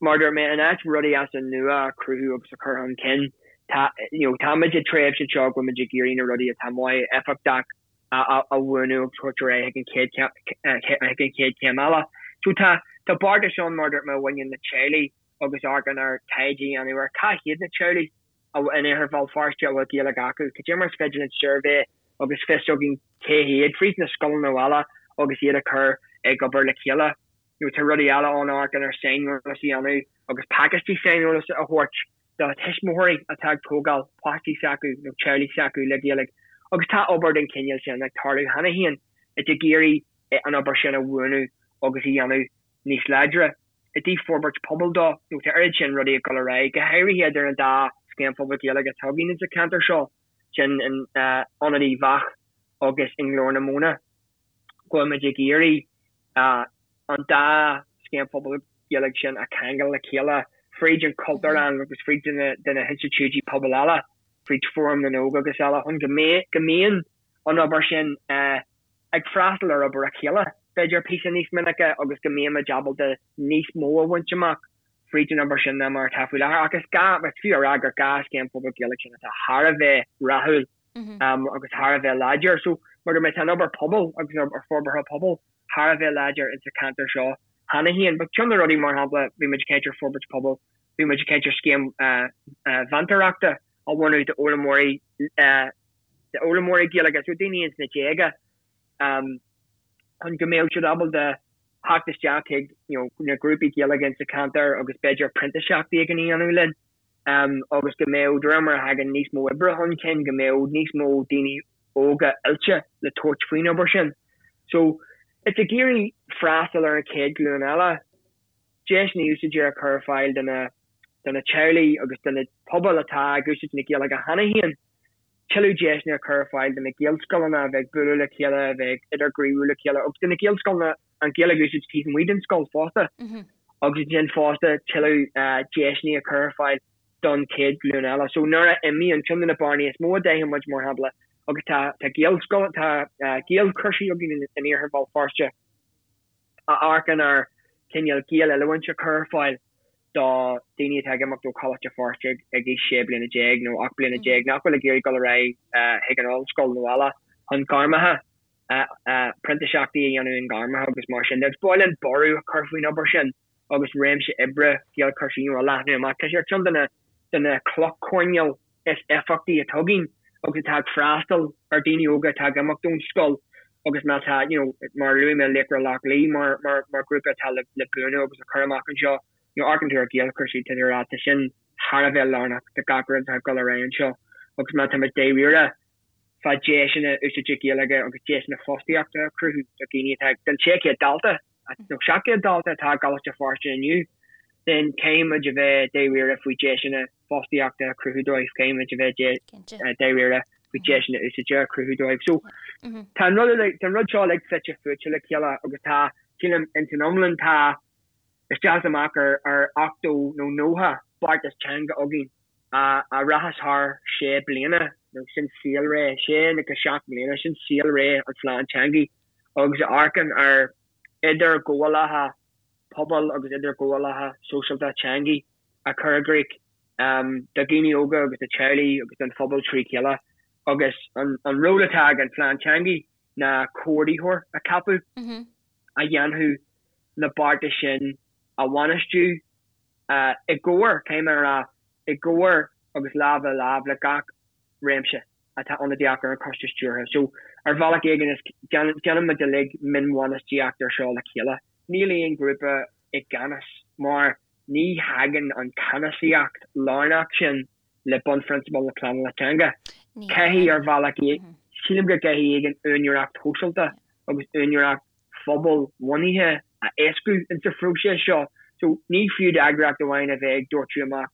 mar a dúirt mé, in áit rudaí as an nua a chruthú agus a chur chun cinn, tá, you know, táimid i dtréimhse anseo go bhfuil muid ag iarraidh na rudaí atá maith, éifeachtach a bhuanú agus thabhairt ar aghaidh chuig an chéad chuig an chéad chéim eile. So tá, tá beartais ann, mar a dúirt mé, a bhaineann le teaghlaigh agus amharcann ar taighde a dhéanamh ar cá hiad na teaghlaigh in Iarthar Bhéal Feirste a bhfuil Gaeilge acu. Cad é mar is féidir linn suirbhé agus fios againn cé hiad fríd na scoileanna eile agus iad a chur ag obair le chéile. Nó tá rudaí eile ann amharcann ar saineolas a dhéanamh agus pacáistí saineolais a thabhairt do thuismitheoirí atá ag tógáil páistí s'acu nó teaghlaigh s'acu le Gaeilge. Agus tá obair den chineál sin ag tarlú cheana féin, ag iarraidh an obair sin a bhuanú agus a dhéanamh níos láidre. I dtaobh forbairt pobail dó, nó tá oiread sin rudaí ag dul ar aghaidh, go háirithe idir an dá. scéim phobail Gaeilge atá againn insa cheantar seo, sin in Ionad Uíbh Eachach agus i nGlór na Móna, go bhfuil muid ag iarraidh an dá scéim phobail Ghaeilge sin a cheangal le chéile fríd an Chultúrlann agus fríd de na hinstitiúidí pobail eile, fríd Fóram na nÓg agus eile, chun go mbíonn an obair sin ag freastal ar obair a chéile, b'fhéidir, píosa níos minice agus go mbímid ábalta níos mó a bhaint amach fríd an obair sin ná mar atá faoi láthair. Ach is gá, is fiú a rá gur 2 scéim phobail Ghaeilge sin atá thar a bheith rathúil agus thar a bheith láidir. So, mar a dúirt mé, tá an obair pobail agus an obair forbartha pobail thar a bheith láidir insa cheantar seo cheana féin. But ceann de na rudaí, mar shampla, bhí muid ag caint ar forbairt pobail, bhí muid ag caint ar scéim mheantóireachta a bhunú d'fhoghlaimeoirí d'fhoghlaimeoirí Gaeilge, so daoine ins na déaga, chun go mbeadh siad ábalta theacht isteach chuig you know na grúpaí Gaeilge insa cheantar agus b'fhéidir printíseacht éigin a dhéanamh linn agus go mbeadh, de réir mar a thagann níos mó oibre chun cinn, go mbeadh níos mó daoine óga oilte le tabhairt faoin obair sin. So, it's ag iarraidh freastal ar an chéad ghlúin eile, deiseanna úsáide a chur ar fáil do na do na teaghlaigh agus do na pobail atá ag úsáid na Gaeilge cheana féin, tuilleadh deiseanna a chur ar fáil do na Gaelscoileanna a bheith ag bualadh le chéile, a bheith ag idirghníomhú le chéile agus do na Gaelscoileanna an Ghaeilge a úsáid taobh amuigh den scoil fosta agus ansin fosta tuilleadh deiseanna a chur ar fáil don chéad ghlúin eile. So nuair a imíonn, ceann de na bearnaí is mó a d'aithin muid mar shampla agus tá tá Gaelscoil, tá Gaelchúrsaí againn in iarthar Bhéal Feirste a amharcann ar cineál Gaeloiliúint a chur ar fáil do daoine atá ag imeacht ó Choláiste Feirste ag aois 16 bliana nó 18 bliana nach bhfuil ag iarraidh dul ar aghaidh chuig an ollscoil nó eile chun gairmeacha, printíseachtaí a dhéanamh i ngairmeacha agus mar sin de. Agus ba mhaith linn borradh a chur faoin obair sin agus réimse oibre Gaelchúrsaí a leathnú amach. Tá sé ar cheann de na de na clocha coirnéil is éifeachtaí atá againn agus atá ag freastal ar daoine óga atá ag imeacht ón scoil agus má tá, you know, mar a luaigh mé Laochra Loch Lao mar, mar, mar grúpa atá le, le bunú agus le cur amach anseo, you know, amharcann tú ar Ghaelchúrsaí, tá tú ag rá, tá sin thar a bheith lárnach do gach rud atá ag dul ar aghaidh anseo agus má tá muid dáiríre fá deiseanna úsáide Gaeilge agus deiseanna fostaíochta a chruthú do dhaoine atá ag, don 600 dalta nó 700 dalta atá i gColáiste Feirste inniu, then caithfidh muid a bheith dáiríre faoi deiseanna fostaíochta a chruthú dóibh, caithfidh muid a bheith dáiríre faoi deiseanna úsáide a chruthú dóibh. So tá an rud tá an rud seo uilig fite fuaite le chéile agus tá, sílim, ins an iomlán tá isteach is amach ar ar 80 nó 90 beartas teanga againn a a rachas thar sé bliana nó sin saolré, sé go seacht mbliana, sin saolré an phlean teanga agus a amharcann ar idirghabhálacha pobail agus idirghabhálacha sóisialta teanga a chur i gcrích do dhaoine óga agus do theaghlaigh agus don phobal trí chéile agus an ról atá ag an phlean teanga ná comhordaitheoir a cheapadh a dhéanfadh na beartais sin a bhainistiú i gcomhar, caithfidh mé a rá, i gcomhar agus lámh le lámh le gach réimse atá ionadaíoch ar an choiste stiúrtha. So, ar bhealach éigin, is déanann muid uilig mionbhainistíocht ar seo le chéile. Níl aon ghrúpa i gceannas mar ní thagann an ceannasaíocht lárnach sin le bunphrionsabail na pleanála teanga. Caithfidh, ar bhealach, sílim go gcaithfidh éigin úinéireacht shóisialta agus úinéireacht phobalbhunaithe a éascú insa phróiseas seo. So, ní fiú d'eagraíocht amháin a bheith ag doirteadh amach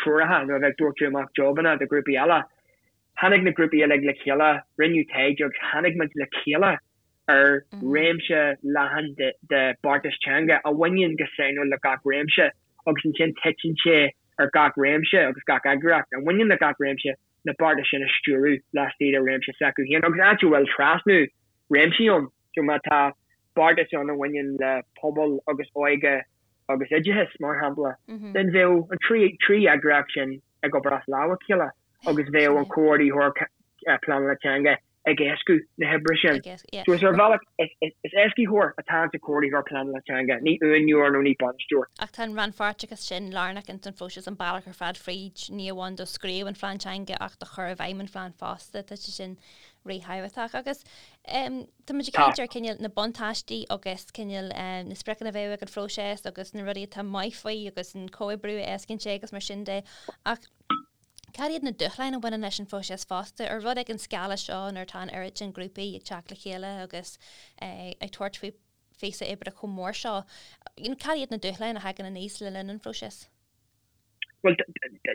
treoracha nó a bheith ag doirteadh amach jobanna do ghrúpaí eile. Tháinig na grúpaí uilig le chéile, rinneadh taighde agus tháinig muid le chéile ar réimse leathan de beartais teanga a bhaineann go sainiúil le gach réimse agus ansin titeann sé ar gach réimse agus gach eagraíocht a bhaineann le gach réimse na beartais sin a stiúradh laistigh de réimse s'acu féin agus áit a bhfuil trasnú réimsí ann. So má tá beartas ann a bhaineann le pobal agus óige agus oideachas, mar shampla, then bheadh an trí eagraíocht sin ag obair as lámh a chéile agus bheadh an comhordaitheoir pleanála teanga ag éascú na hoibre sin. So is ar bhealach, is éascaitheoir atá insa chomhordaitheoir pleanála teanga, ní uaineoir nó ní bainisteoir. Ach tá an rannpháirteachas sin lárnach ins an phróiseas, an bealach ar fad fríd, ní amháin do scríobh an phlean teanga ach do chur i bhfeidhm an phlean fosta, tá sé sin ríthábhachtach. Agus tá muid ag caint ar cineál na buntáistí agus cineál na spriocanna a bheadh ag an phróiseas agus na rudaí atá maith faoi agus an comhoibriú a éascaíonn sé agus mar sin de ach Cad iad na dúshláin a bhaineann leis an phróiseas fosta? Ar rud ag an scála seo nuair atá an oiread sin grúpaí ag teacht le chéile agus ag tabhairt faoi phíosa oibre chomh mór seo, cad iad na dúshláin a thagann aníos le linn an phróisis? Bhuel,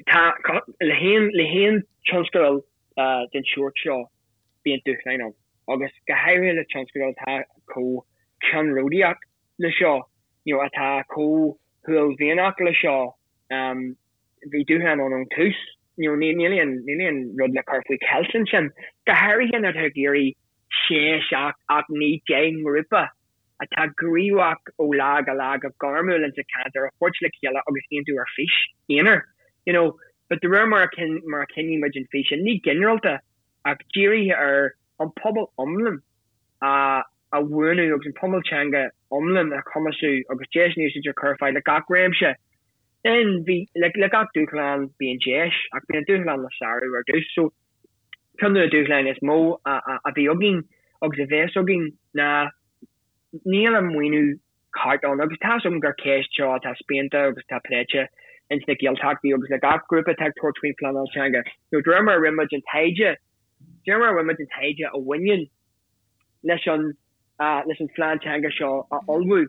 tá, le haon, le haon tionscadal den sórt seo, bíonn dúshláin ann, agus go háirithe le tionscadal atá chomh ceannródaíoch le seo, you know, atá chomh huaillmhianach le seo, bhí dúshláin ann ón tús, you know, níl aon, níl aon rud le cur faoi cheilt ansin, go háirithe nuair atá tú ag iarraidh sé, seacht, 8, 9, 10 ngrúpa atá gníomhach ó lá go lá go gairmiúil insa cheantar a thabhairt le chéile agus aontú ar fís aonair, you know. But de réir mar a mar a chinntigh muid an fís sin, ní ginearálta ach dírithe ar an pobal iomlán a a bhuanú agus an pobal teanga iomlán a chumasú agus deiseanna úsáide a chur ar fáil le gach réimse. Then bhí, le le gach dúshlán bíonn deis ach bíonn an dúshlán le sárú ar dtús. So ceann de na dúshláin is mó a bhí againn agus a bheas againn ná níl an maoiniú ceart ann agus tá's agam gur ceist seo atá spíonta agus atá pléite ins na Gaeltachtaí agus le gach grúpa atá ag tabhairt faoin phleanáil teanga. Nó de réir mar a rinne muid an taighde, de réir mar a rinne muid an taighde a bhaineann leis an leis an phlean teanga seo a ullmhú,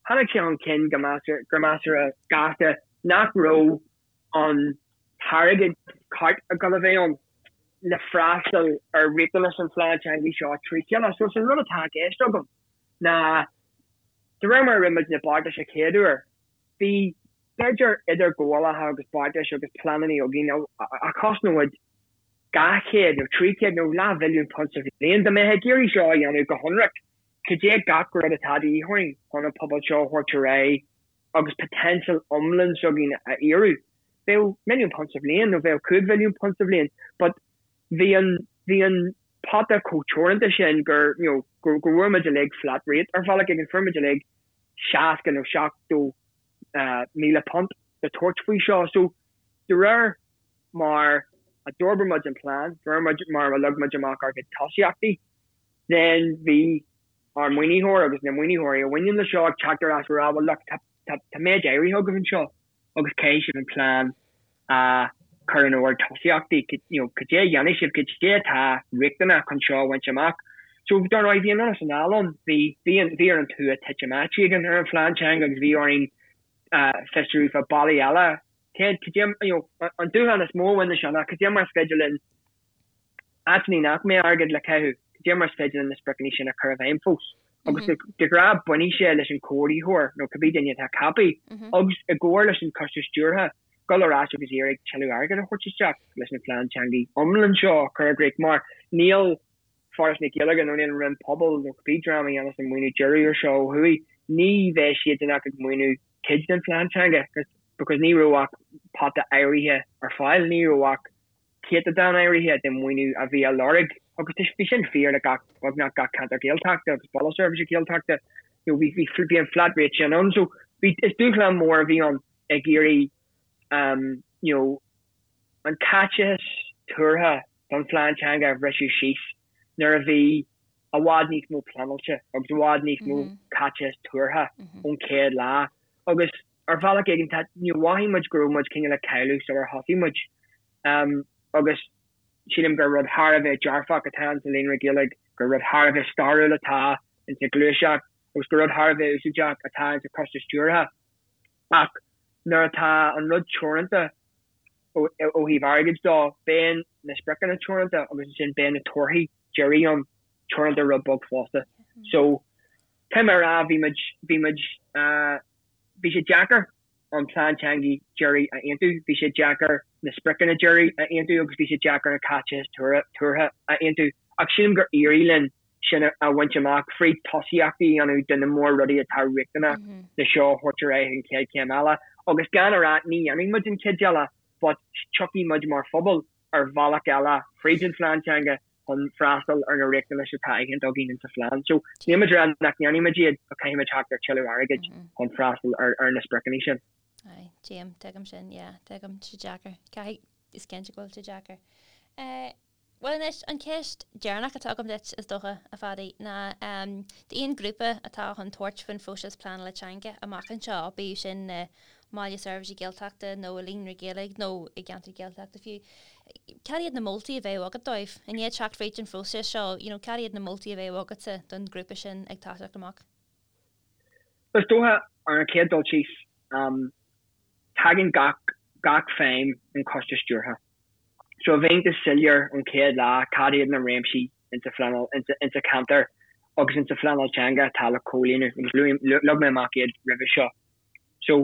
tháinig sé chun cinn go gur measartha gasta nach raibh an t-airgead ceart ag dul a bheith ann le freastal ar riachtanais an phlean teanga seo trí chéile. So is an rud atá i gceist agam ná de réir mar a rinne muid na beartais a chéad uair, bhí b'fhéidir idirghabhálacha agus beartais agus pleananna againn a chosnódh muid 200 nó 300 nó leathmhilliún punt sa bhliain. Dá mbeifeá ag iarraidh seo a dhéanamh go hionraic, cad é gach rud atá de dhíth orainn chun an pobal seo a thabhairt ar aghaidh agus poitéinseal iomlán s'againn a fhíorú. Bheadh milliún punt sa bhliain nó bheadh 5 mhilliún punt sa bhliain but bhí an, bhí an pota chomh teoranta sin gur, you know, go, go bhfuair muid uilig flat rate ar bhealach éigin, fuair muid uilig 60 nó 70 míle punt le tabhairt faoi seo. So de réir mar a d'fhorbair muid an plean, de réir mar a leag muid amach ár gcuid tosaíochtaí, then bhí ár maoinitheoir agus na maoinitheoirí a bhaineann le seo ag teacht ar ais ag rá well look tá tá méid áirithe agaibh anseo agus caithfidh sibh an plean a chur in ord tosaíochtaí you know cad é a dhéanfaidh sibh cad é atá riachtanach chun seo a bhaint amach. So dar ndóigh bhí an anonn is anall ann bhí bhí an bhí ar an tua titim áit éigin ar an phlean teanga agus bhí orainn fiosrú fá bealaí eile cé cad é you know an dúshlán is mó a bhain le seo ná cad é mar is féidir linn áiteanna nach mbeadh airgead le caitheamh, cad é mar is féidir linn na spriocanna sin a chur i bhfeidhm fós? Agus de ghnáth bainfidh sé leis an chomhordaitheoir nó cibé duine atá ceaptha agus i gcomhar leis an choiste stiúrtha, dul ar ais agus iarraidh tuilleadh airgid a thabhairt isteach leis an phlean teanga iomlán seo a chur i gcrích mar níl Foras na Gaeilge nó níl an Roinn Pobal nó cibé dream a dhéanas an maoiniú deiridh ar seo ó thuaidh, ní bheidh siadsan ach ag maoiniú cuid den phlean teanga because ní raibh ach pota áirithe ar fáil, ní raibh ach céatadán áirithe den mhaoiniú a bhí á lorg agus bhí sin fíor le gach, beagnach gach ceantar Gaeltachta agus Baile Seirbhíse Gaeltachta. You know, bhí, bhí, bhí an flat rate sin ann. So bhí, is dúshlán mór a bhí ann ag iarraidh um, you know, an caiteachas tuartha don phlean teanga a bhriseadh síos nuair a bhí i bhfad níos mó pleanáilte agus i bhfad níos mó caiteachas tuartha ón chéad lá. Agus ar bhealach éigin tá, you know, mhothaigh muid go raibh muid cineál ag cailleadh sular thosaigh muid. Um, agus sílim gur rud thar a bheith dearfach atá insa Líonra Gaeilge, gur rud thar a bheith stairiúil atá insa ghluaiseacht agus gur rud thar a bheith úsáideach atá insa choiste stiúrtha. Ach nuair atá an rud teoranta ó, ó thaobh airgid dó, beidh na spriocanna teoranta agus ansin beidh na torthaí deiridh ann teoranta rud beag fosta. So, caithfidh mé a rá, bhí muid, bhí muid, uh, Bhí sé deacair an plean teanga deiridh a aontú, bhí sé deacair na spriocanna deiridh a aontú agus bhí sé deacair an caiteachas tuartha a aontú ach sílim gur éirigh linn sin a bhaint amach fríd tosaíochtaí a dhéanamh de na mór-rudaí atá riachtanach le seo a thabhairt ar aghaidh an chéad chéim eile. Agus gan a rá ní dhéanfaidh muid an chuid eile but tiocfaidh muid mar phobal ar bhealach eile fríd an phlean teanga chun freastal ar na riachtanais atá aitheanta againn insa phlean. So níl muid ag rá nach ndéanfaidh muid iad ach caithfidh muid theacht ar tuilleadh airgid chun freastal ar ar na spriocanna sin. Aye, tuigim, tuigim sin, yeah, tuigim, tá sé deacair. Caithfidh, is cinnte go bhfuil sé deacair. Eh, bhuel anois, an cheist deireanach atá agam duit, is dócha, a Phadaí, ná um, d'aon ghrúpa atá chun tabhairt faoin phróiseas pleanála teanga amach anseo, bíodh sin i mBaile Seirbhíse Gaeltachta nó i Líonra Gaeilge nó i gceantar Gaeltachta fiú, Cad iad na moltaí a bheadh agat dóibh? I ndiaidh teacht fríd an phróiseas seo, you know, cad iad na moltaí a bheadh agatsa don ghrúpa sin ag toiseacht amach? Is dócha, ar an chéad dul síos, tagann gach. gach feidhm ón choiste stiúrtha. So a bheith iontach soiléir ón chéad lá cad iad na réimsí insa phleanáil, insa cheantar agus insa phleanáil teanga atá le comhlíonadh agus leag mé amach iad roimhe seo. So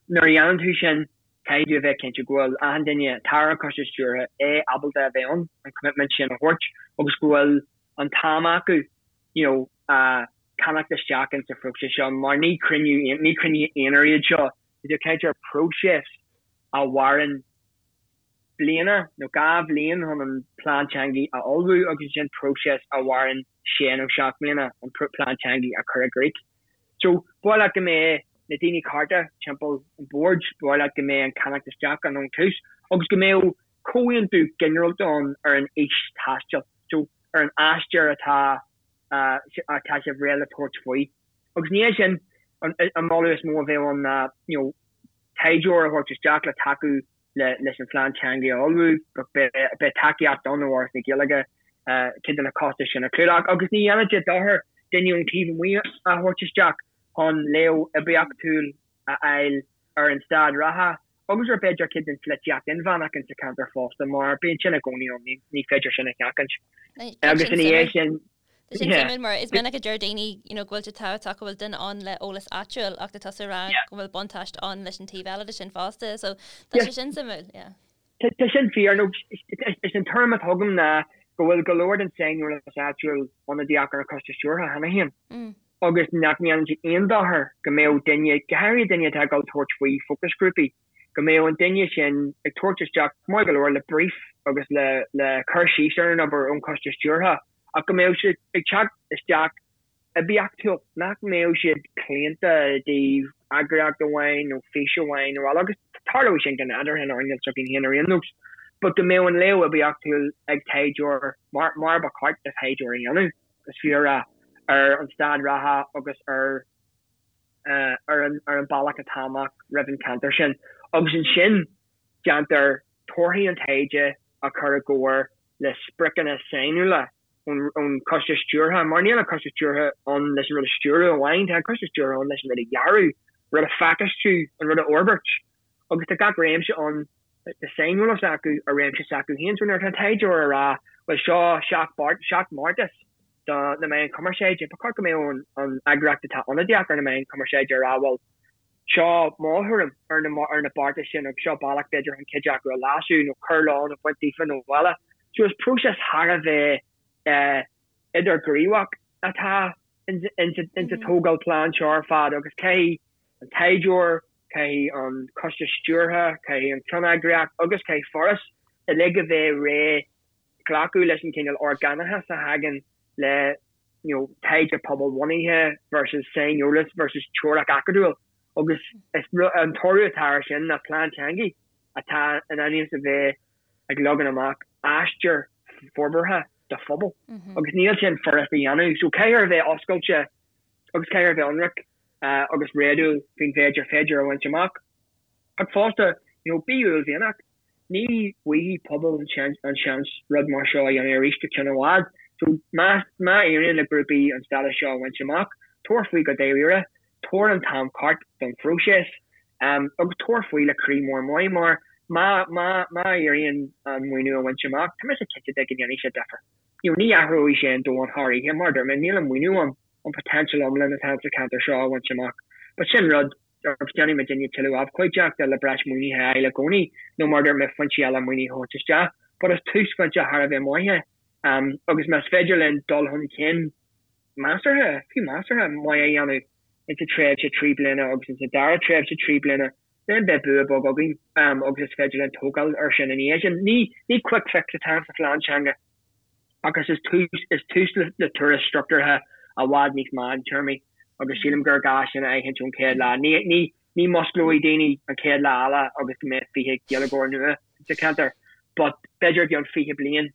nuair a dhéanann tú sin caithfidh tú a bheith cinnte go bhfuil achan duine atá ar an choiste stiúrtha é ábalta a bheith ann, an commitment sin a thabhairt agus go bhfuil an t-am acu you know ceannacht isteach insa phróiseas seo mar ní cruinniú ní cruinnithe aonair iad seo, tá tú ag caint ar próiseas a mhaireann bliana nó 2 bhliain chun an plean teanga a ullmhú agus ansin próiseas a mhaireann sé nó seacht mbliana an plean teanga a chur i gcrích. So, ba mhaith leat go mbeadh na daoine cearta timpeall an bhoird, ba mhaith leat go mbeadh an ceannacht isteach ann ón tús agus go mbeadh comhaontú ginearálta ann ar an fhís taistil, so ar an aistear atá atá sibh réidh le tabhairt faoi. Agus ina dhiaidh sin, an moladh is mó a bheadh ann ná, you know, taighdeoir a thabhairt isteach le tacú leis an phlean teanga a ullmhú, beidh tacaíocht ann ó Fhoras na Gaeilge cuid de na costais sin a chlúdach agus ní dhéanfadh sé dochar duine ón taobh amuigh a thabhairt isteach chun léamh oibiachtúil a fháil ar an staid reatha agus ar b'fhéidir cuid den pholaitíocht inmheánach insa cheantar fosta mar bíonn sin i gcónaí ann, ní féidir sin a sheachaint. Agus ina dhiaidh sin. Tá sin suimiúil mar is minic a deir daoine you know go bhfuil sé tábhachtach go bhfuil duine ann le eolas áitiúil ach tá tusa ag rá go bhfuil buntáiste ann leis an taobh eile de sin fosta so tá sé sin suimiúil, yeah. Tá sin fíor nó is an tuairim atá agam ná go bhfuil go leor den saineolas áitiúil ionadaíoch ar an choiste stiúrtha cheana féin agus nach ndéanann sé aon dochar go mbeadh duine, go háirithe duine atá ag dul tabhairt faoi fócasghrúpaí, go mbeadh an duine sin ag tabhairt isteach maith go leor le brief agus le le cur síos ar an obair ón choiste stiúrtha. ach go mbeadh siad ag teacht isteach oibiachtúil, nach mbeadh siad claonta i dtaobh eagraíocht amháin nó fís amháin nó eile, agus tarlóidh sin go nádúrtha in earnáil s'againn féin ar aon nós, but go mbeadh an léamh oibiachtúil ag taighdeoir, mar mar ba cheart do thaighdeoir a dhéanamh, is fiú a rá, ar an staid reatha agus ar ar an ar an bealach atá amach roimh an cheantar sin. Agus ansin déantar torthaí an taighde a chur i gcomhar le spriocanna sainiúla ón choiste stiúrtha, mar níl an coiste stiúrtha ann leis an rud a stiúradh amháin, tá an coiste stiúrtha ann leis an rud a dhearadh, an rud a phacáistiú, an rud a fhorbairt. Agus tá gach réimse ann, tá saineolas acu ar réimse s'acu féin. So nuair atá an taighdeoir ag rá, bhuel seo seacht mbeartas do na meáin chumarsáide, ba cheart go mbeadh an eagraíocht atá ionadaíoch ar na meáin chumarsáide ag rá, bhuel, Seo mo thuairim ar na ar na beartais sin agus seo bealach b'fhéidir chun cuid acu a leasú nó cur leo nó baint díofa nó eile. So is próiseas thar a bheith idirghníomhach atá insa tógáil plean seo ar fad agus caithfidh an taighdeoir, caithfidh an coiste stiúrtha, caithfidh an cheanneagraíocht agus caithfidh Foras uilig a bheith réidh glacadh leis an cineál orgánachas a thagann le you know taighde pobalbhunaithe versus saineolas versus teoiric acadúil agus is an toradh atá air sin ná plean teanga atá in ainm is a bheith ag leagan amach aistear forbartha do phobal agus níl sin furast a dhéanamh so caithfear a bheith oscailte agus caithfear a bheith ionraic agus réadúil faoin mhéid ar féidir a bhaint amach ach fosta you know bí uaillmhianach. Ní bhfaighidh pobal an seans rud mar seo a dhéanamh arís go ceann i bhfad. So má éiríonn le grúpaí an stádas seo a bhaint amach, tabhair faoi go dáiríre, tabhair an t-am ceart don phróiseas agus tabhair faoi le croí mór maith mar má má má éiríonn an maoiniú a bhaint amach, tá mise cinnte de go ndéanfaidh sé difear. You know, ní athróidh sé an domhan thar oíche mar a dúirt mé, níl an maoiniú ann an potential iomlán atá sa cheantar seo a bhaint amach. But sin rud agus déanfaidh muidinne tuilleadh abhcóideachta le breis maoinithe a fháil i gcónaí, nó mar a dúirt mé, foinsí eile maoinithe a thabhairt isteach. But is túsphointe thar a bheith maith é agus más féidir linn dul chun cinn measartha, fiú measartha, maith a dhéanamh insa tréimhse 3 bliana agus insa dara tréimhse 3 bliana, then beidh bua beag againn agus is féidir linn tógáil air sin ina dhiaidh sin. Ní quick fix atá sa phlean teanga ach is tús is tús le turas struchtúrtha i bhfad níos meántéarmaí agus sílim gur gá sin a aithint ón chéad lá. Ní ní ní musclóidh daoine an chéad lá eile agus go mbeidh 20 Gaeilgeoir nua sa cheantar but b'fhéidir i gceann 20 bliain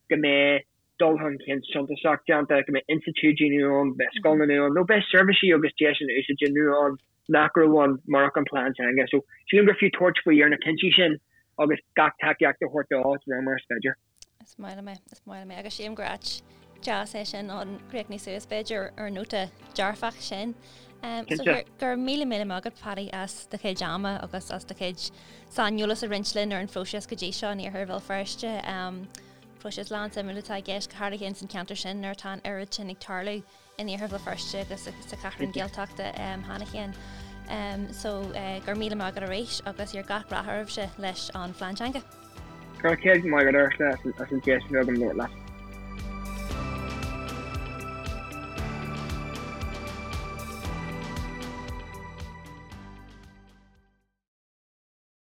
go mbeidh dul chun cinn suntasach déanta, go mbeidh institiúidí nua ann, go mbeidh scoileanna nua ann nó beidh seirbhísí agus deiseanna úsáide nua ann nach raibh ann murach an plean teanga. So sílim gur fiú tabhairt faoi ar na cinntí sin agus gach tacaíocht a thabhairt dó de réir mar is féidir. Is maith liom é, is maith liom é agus sílim gur áit deas é sin chun críochnú suas b'fhéidir ar an nóta dearfach sin. So go raibh míle míle maith agat Paddy as do chuid ama agus as do chuid saineolas a roinnt linn ar an phróiseas go dtí seo in iarthar Bhéal Feirste. Próiseas lán suimiúil atá i gceist go háirithe ins an cheantar sin nuair atá an oiread sin ag tarlú in iarthar Bhéal Feirste agus sa Cheathrú Gaeltachta cheana féin. So go raibh míle maith agat arís agus here gach rath oraibhse leis an phlean teanga. Go raibh céad maith agat Ursula as an deis a bheith agam labhairt leat.